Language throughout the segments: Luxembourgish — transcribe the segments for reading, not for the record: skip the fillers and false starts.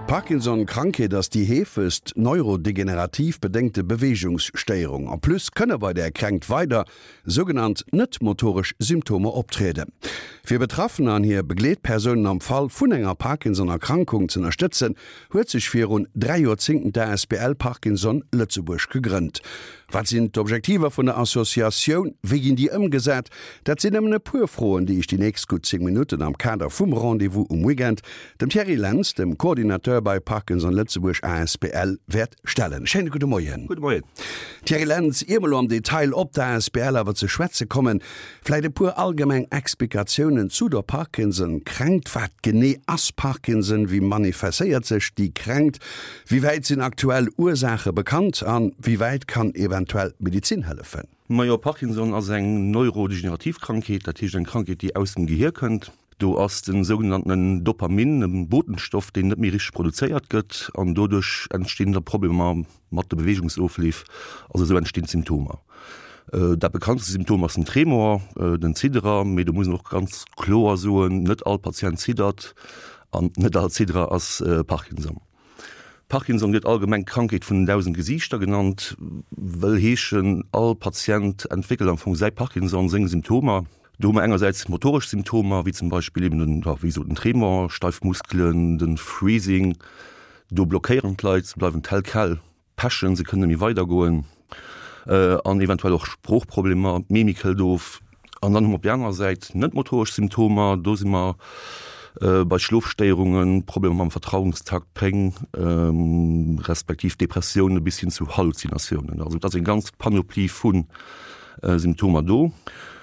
D'Parkinson-Krankheet ass déi heefegst neurodegenerativ bedéngte Beweegungsstéierung. En plus kënne bei där Kränkt weider sougenannt net-motoresch Symptomer optrieden. Fir Betraffener an hir Begleetpersounen am Fall vun enger Parkinson-Erkrankung z'ënnerstëtzen, huet sech virun 3 Joerzéngten d'ASBL Parkinson Lëtzebuerg gegrënnt. Wat sinn d'Objektiver vun der Associatioun? Wéi ginn déi ëmgesat? Dat sinn nëmmen e puer Froen, déi ech déi nächst gutt 10 Minutten am Kader vum Rendez-vous um Weekend dem Thierry Lentz, dem Coordinateur bei Parkinson Lëtzebuerg asbl, wäert stellen. Schéine gudde Moien. Gudde Moien. Thierry Lentz, ier mer elo am Detail op d'ASBL awer ze schwätze kommen, vläit e puer allgemeng Explikatiounen zu der Parkinson-Kränkt. Wat genee ass Parkinson? Wéi manifestéiert sech déi Kränkt? Wéi wäit sinn aktuell Ursaache bekannt a wéi wäit kann eventuell d'Medizin hëllefen? Majo, Parkinson ass eng neurodegenerativ Krankheet, dat heescht eng Krankheet, déi aus dem Gehier kënnt. Do ass den sougenanntenen Dopamin, e Botenstoff, deen net méi richteg produzéiert gëtt an doduerch entstinn da Problemer mat de Beweegungsofleef, also esou entstinn d'Symptomer. Dat bekanntste Symptom ass den Tremor, den Zidderer, mee do muss een och ganz kloer soen, net all Patient ziddert an net all Zidderer ass Parkinson. Parkinson gëtt allgemeng d'Krankheet vun den 1.000 Gesiichter genannt, wëll heeschen, all Patient entwéckelt am Fong säi Parkinson, seng Symptomer. Do hu mer engersäits motoresch Symptomer, wéi zum Beispill eben den, wéi gesot, den Tremor, steif Muskelen, de Freezing, do blockéieren d'Leit, se bleiwen tel quel pechen, se kënnen net méi weidergoen, an eventuell och Sproochproblemer, d'Mimik hëlt of. An dann hu mer op där anerer Säit net motoresch Symptomer, do si mer bei Schlofstéierungen, Problemer mam Vertrauungstakt, Péng, respektiv Depressioune bis hin zu Halluzinatiounen. Also et ass eng ganz Panoplie vu Symptomer do.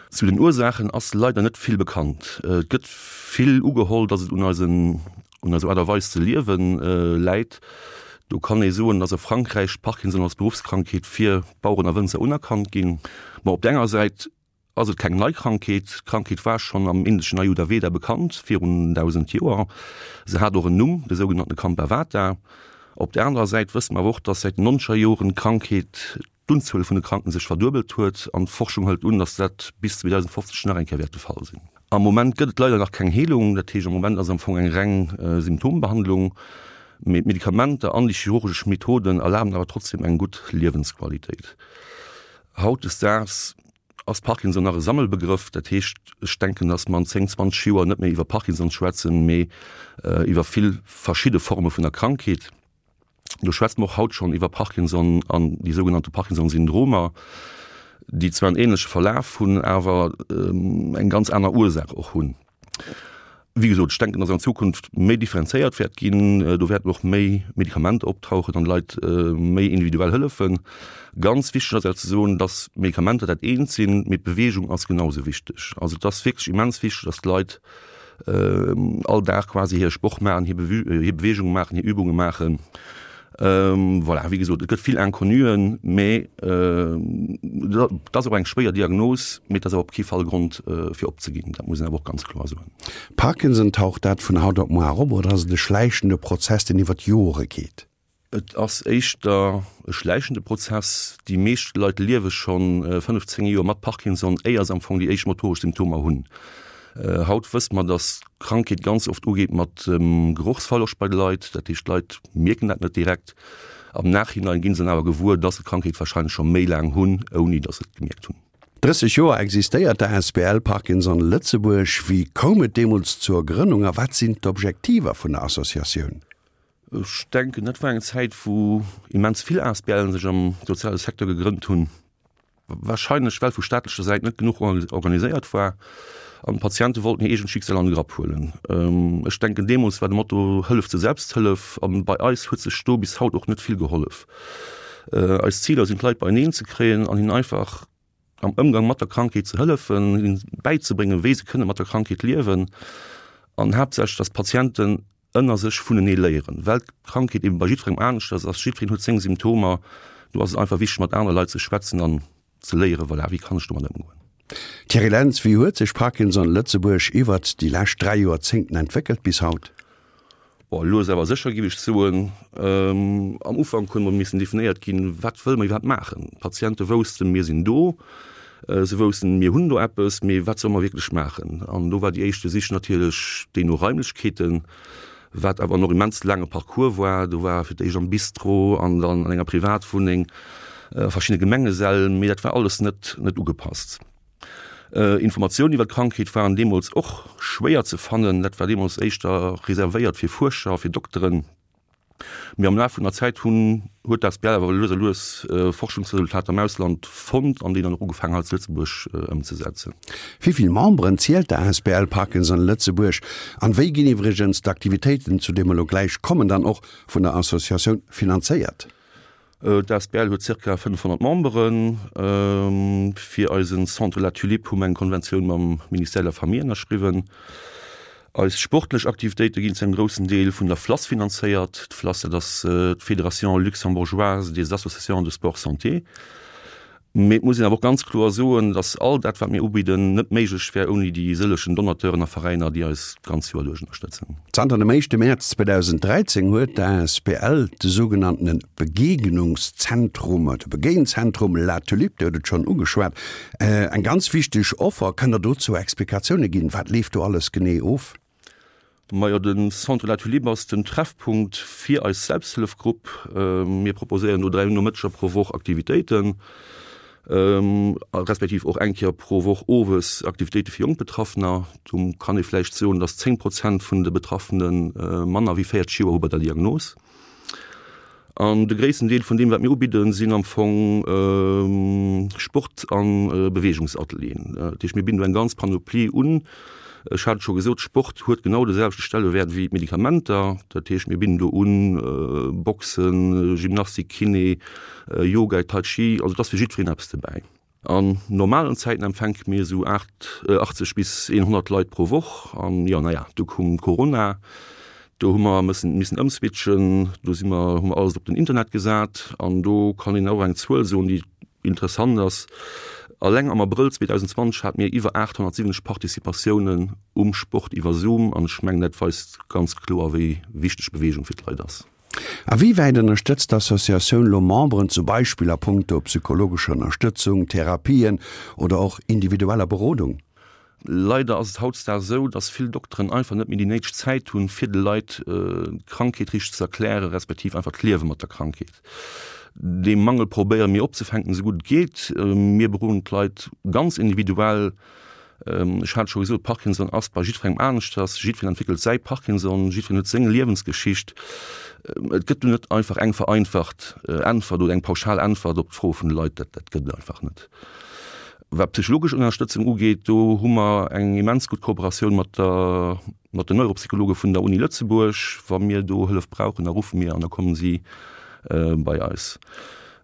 Zu den Ursaachen ass leider net vill bekannt. Et gëtt vill ugeholl, datt et un eisen Un eiser Aart a Weis ze liewen läit. Do kann ee soen, dass a Frankräich Parkinson als Beruffskrankheet fir Baueren a Wënzer unerkannt ginn. Ma op der enger Säit ass et keng nei Krankheet. D'Krankheet war schonn am indeschen Ayurveda bekannt, virun 1.000 Joer. Se hat och en Numm, de sougenannte Kampavata. Op der anerer Säit wësse mer awer och, dass säit den nonzeger Joren d'Krankheet d'Unzuel vun de Kranken sech verduebelt huet an d'Forschung hëlt un, datt dat bis 2050 nach eng Kéier wäert de Fall sinn. Am Moment gëtt et leider nach keng Heelung, dat heescht am Moment ass am Fong eng reng Symptombehandlung, mee d'Medikamenter an déi chirurgesch Methoden erlaben awer trotzdem eng gutt Liewensqualitéit. Hautdesdaags ass Parkinson nach e Sammelbegrëff, dat heescht ech denken, datt mer an 10, 20 Joer net méi iwwer Parkinson schwätzen, mee iwwer vill verschidde Forme vun der Krankheet. Do schwätze mer och haut schonn iwwer Parkinson an déi sougenannte Parkinson-Syndromer, déi zwar en änleche Verlaf hunn, awer eng ganz aner Ursaach och hunn. Wéi gesot, ech denken, dass an Zukunft méi differenzéiert wäert ginn. Do wäerten och méi Medikamenter optauchen an de Leit méi individuell hëllefen. Ganz wichteg ass awer ze soen, dass Medikamenter dat eent sinn, mee d'Beweegung ass genau esou wichteg. Also et ass wierklech immens wichteg, dass d'Leit all Dag quasi hir Sport maachen, hir Beweegung maachen, hir Übunge maachen. Voilà, wéi gesot, et gëtt vill Inconnuen, mee et ass och eng schwéier Diagnos, mee et ass awer op kee Fall Grond fir opzeginn, dat muss een awer och ganz kloer soen. Parkinson, taucht dat vun haut op muar op oder ass et e schläichende Prozess, deen iwwer d'Jore geet? Et ass éischter e schläichende Prozess. Déi meescht Leit liewe scho 15 Joer mat Parkinson, éier se am Fong déi éischt motoresch Symptomer hunn. Haut wësse mer, datt d'Krankheet ganz oft ugeet mat Gerochsverloscht bei de Leit. Dat heescht, d'Leit mierken dat net direkt. Am Nachhinein gi se dann awer gewuer, datt se d'Krankheet warscheinlech scho méi laang hunn, ouni datt se et gemierkt hunn. 30 Joer existéiert d'ASBL Parkinson Lëtzebuerg. Wéi koum et deemools zur Grënnung a wat sinn d'Objektiver vun der Associatioun? Ech denken, dat war eng Zäit, wou immens vill ASBLen sech am soziale Secteur gegrënnt hunn, wahrscheinlech well vu staatlecher Säit net genuch organiséiert war an d'Patiente wollten hir eegent Schicksal an de Grapp huelen. Ech denken, deemools war de Motto Hëllef zur Selbsthëllef an bei eis huet sech do bis haut och net vill gehollef. Eis Ziler sinn, d'Leit beieneen ze kréien an hinnen einfach am Ëmgang mat der Krankheet ze hëllefen, hinnen bäizebréngen, wéi se kënne mat der Krankheet liewen an haaptsächlech, dass d'Patienten ënner sech vunenee léieren, well d'Krankheet eben bei jiddwerengem aneschters ass, jiddwereen huet seng Symptomer, do ass et einfach wichteg mat anere Leit ze schwätzen an ze léieren, voilà, wéi kann ech domat ëmgoen. Thierry Lentz, Wéi huet sech Parkinson Lëtzebuerg iwwert déi lescht 3 Joerzéngten entwéckelt bis haut? Bon, lues awer sécher géif ech soen. Am Ufank hunn mer missen definéiert ginn, wat wëlle mer iwwerhaapt maachen. D'Patiente woussten, mir sinn do, se woussten, mir hunn do eppes, mee wat solle mer wierklech maachen? An do war déi éischte Sich natierlech déi no Raimlechkeeten. Wat awer en och immens laange Parcours war. Do war fir d'éischt am Bistro an dann an enger Privatwunneng, a verschiddene Gemengesäll, mee dat war alles net net ugepasst. Informatiounen iwwer d'Krankheet waren deemools och schwéier ze fannen. Dat war deemools éischter reservéiert fir Fuerscher, fir Dokteren. Mee am Laf vun der Zäit hunn huet d'ASBL awer lues a lues Forschungsresultater am Ausland fonnt an déi dann och ugefaangen hei zu Lëtzebuerg ëmzesetzen. Wéi vill Memberen zielt d'ASBL Parkinson Lëtzebuerg an wéi ginn iwwregens d'Aktivitéiten, zu deem mer elo gläich kommen, dann och vun der Associatioun finanzéiert? D'asbl huet zirka 500 Memberen. Fir eisen Centre La Tulipe hu mer eng Konventioun mam Ministère de la Famille ënnerschriwwen. Eis sportlech Aktivitéite ginn zu engem groussen Deel vun der FLASS finanzéiert. D'FLASS, dat ass d'Fédération Luxembourgeoise des Associations de Sport Santé. Mee et muss een awer och ganz kloer soen, dass all dat, wat mir ubidden, net méiglech wär ouni déi sëllechen Donateuren a Veräiner, déi eis d'ganz Joer duerch ënnerstëtzen. Zanter dem éischte Mäerz 2013 huet d'ASBL de sougenanntene Begegnungszentrum oder Begéinzentrum La Tulipe, Dir hutt et schonn ugeschwat, eng ganz wichteg Offer. Kënnt Der dozou Explikatioune ginn? Wat leeft do alles genee of? Majo, de Centre La Tulipe ass den Treffpunkt fir eis Selbsthëllefgrupp. Mir proposéieren do 3 Nomëtteger pro Woch Aktivitéiten, respektiv och eng Kéier pro Woch owes Aktivitéite fir jonk Betraffener. Do kann ee vläicht soen, datt 10 Prozent vun de Betraffene manner wéi 40 Joer hu bei der Diagnos. An de gréissten Deel vun deem, wat mir ubidden, sinn am Fong Sport a Beweegungsatelieren. Dat heescht, mir bidden do eng ganz Panoplie un. Ech hat et scho gesot, Sport huet genau de selwechte Stellewäert wéi d'Medikamenter. Dat heescht, mir bidden do un Boxen, Gymnastik, Kiné, Yoga, Tai Chi. Also et ass fir jiddwereen eppes dobäi. An normalen Zäiten empfänke mir esou 80 bis 100 Leit pro Woch. An jo, naja, du koum Corona, do hu mer mëssen missen ëmswitchen, do si mer, hu mer alles op den Internet gesat. An do kann een och eng Zuel soen, déi interessant ass, Alleng am Abrëll 2020 hate mir iwwer 870 Participatiounen um Sport iwwer Zoom. An ech mengen, dat weist ganz kloer, wéi wichteg Beweegung fir d'Leit ass. A wéi wäit ënnerstëtzt d'Associatioun lo Memberen, zum Beispill a punkto psychologescher Ënnerstëtzung, Therapien oder och individueller Berodung? Leider ass et hautdesdaags esou, dass vill Dokteren einfach net méi déi néideg Zäit hunn, fir de Leit d'Krankheet richteg ze erklären, respektiv einfach d'Liewe mat der Krankheet. Dee Mangel probéiere mir opzefänken, esou gutt et geet. Mir beroden d'Leit ganz individuell. Ech hat et scho gesot, Parkinson ass bei jiddwerengem aneschters. Jiddwereen entwéckelt säi Parkinson, jiddwereen huet seng Liewensgeschicht. Et gëtt do net einfach eng vereinfacht Äntwert oder eng pauschal Äntwert op d'Froe vun de Leit. Dat, dat gëtt et einfach net. Wat psychologesch Ënnerstëtzung ugeet, do hu mer eng immens gutt Kooperatioun mat der, mat den Neuropsychologe vun der Uni Lëtzebuerg. Wa mir do Hëllef brauchen, da ruffe mir an da kommen si bei eis.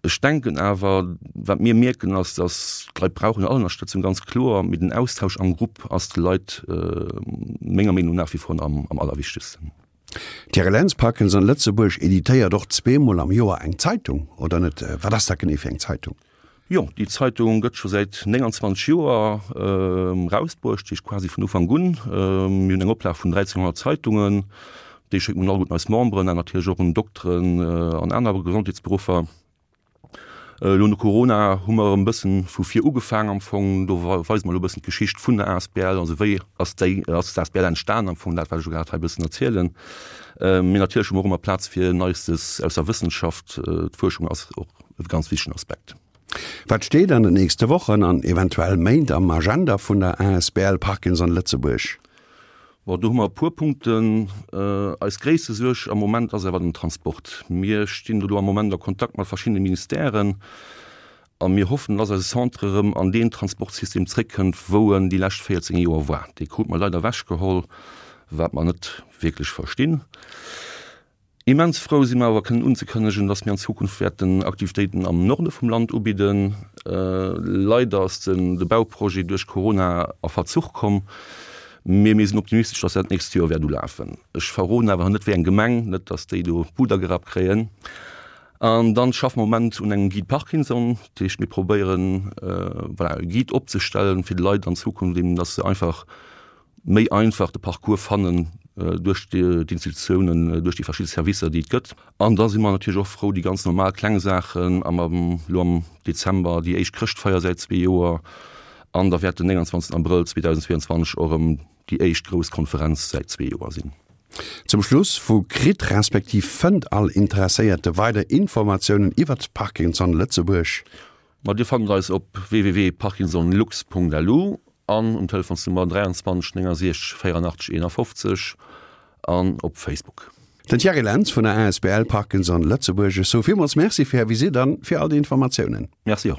Ech denken awer, wat mir mierken, ass, datt d'Leit brauchen all Ënnerstëtzung, ganz kloer, mee den Austausch am Grupp ass de Leit menger Meenung nach wie vor am allerwichtegsten. D'Thierry Lentz, Parkinson Lëtzebuerg editéiert och zweemol am Joer eng Zeitung, oder net? Wat ass dat genee fir eng Zeitung? Jo, déi Zeitung gëtt scho säit 29 Joer erausbruecht, dat heescht quasi vun Ufank un. Mir hunn eng Oplag vun 1.300 Zeitungen. Déi schécke mir all un eis Memberen an natierlech och un Dokteren an aner Gesondheetsberuffer. Elo no Corona hu mer erëm e bëssen vu vir ugefaang am Fong. Do weise mer elo e bëssen d'Geschicht vun der asbl, also wéi ass déi, ass d'asbl entstan am Fong, dat wat ech elo grad hei e bëssen erzielen. Mee natierlech hu mer och ëmmer Plaz fir Neistes aus der Wëssenschaft. D'Fuerschung ass och e ganz wichtegen Aspekt. Wat steet an den nächste Wochen an eventuell Méint am Agenda vun der asbl Parkinson Lëtzebuerg? Bon, do hu mer e puer Punkten. Eis gréisste Suerg am Moment ass awer den Transport. Mir stinn do elo am Moment a Kontakt mat verschiddene Ministèren a mir hoffen, dass eise Centre erëm an deen Transportsystem zréckkënnt, wou en déi lescht 14 Joer war. Dee krute mer leider ewechgeholl, wat mer net wierklech verstinn. Immens frou si mer awer kënnen unzekënnegen, dass mir an Zukunft wäerten Aktivitéiten am Norde vum Land ubidden. Leider ass den de Bauprojet duerch Corona a Verzuch komm, mee mir sinn optimistesch, dass dat d'nächst Joer wäert ulafen. Ech verroden awer net wéi eng Gemeng, net dass déi do d'Buder gerappt kréien. An dann schaffe mer am Moment un engem Guide Parkinson, dat heescht mir probéieren voilà e Guide opzestellen fir de Leit an Zukunft eben, dass se einfach méi einfach de Parcours fannen duerch d'Institutiounen, duerch déi verschidde Servicer, déi et gëtt. An da si mer natierlech och frou, déi ganz normal kleng Saachen, am elo am Dezember déi éischt Chrëschtfeier säit zwee Joer an da wäert den 29 Abrëll 2022 och erëm déi éischt grouss Konferenz säit zwee Joer sinn. Zum Schluss, Wou kritt respektiv fënnt all Interesséierte weider Informatiounen iwwert Parkinson Lëtzebuerg? Ma Dir fannt eis op www.parkinsonlux.lu an um Telefonsnummer 23 69 84 51 an op Facebook. Den Thierry Lentz vun der asbl Parkinson Lëtzebuerg, ech soe villmools Merci fir Är Visitt an fir all déi Informatiounen. Merci och.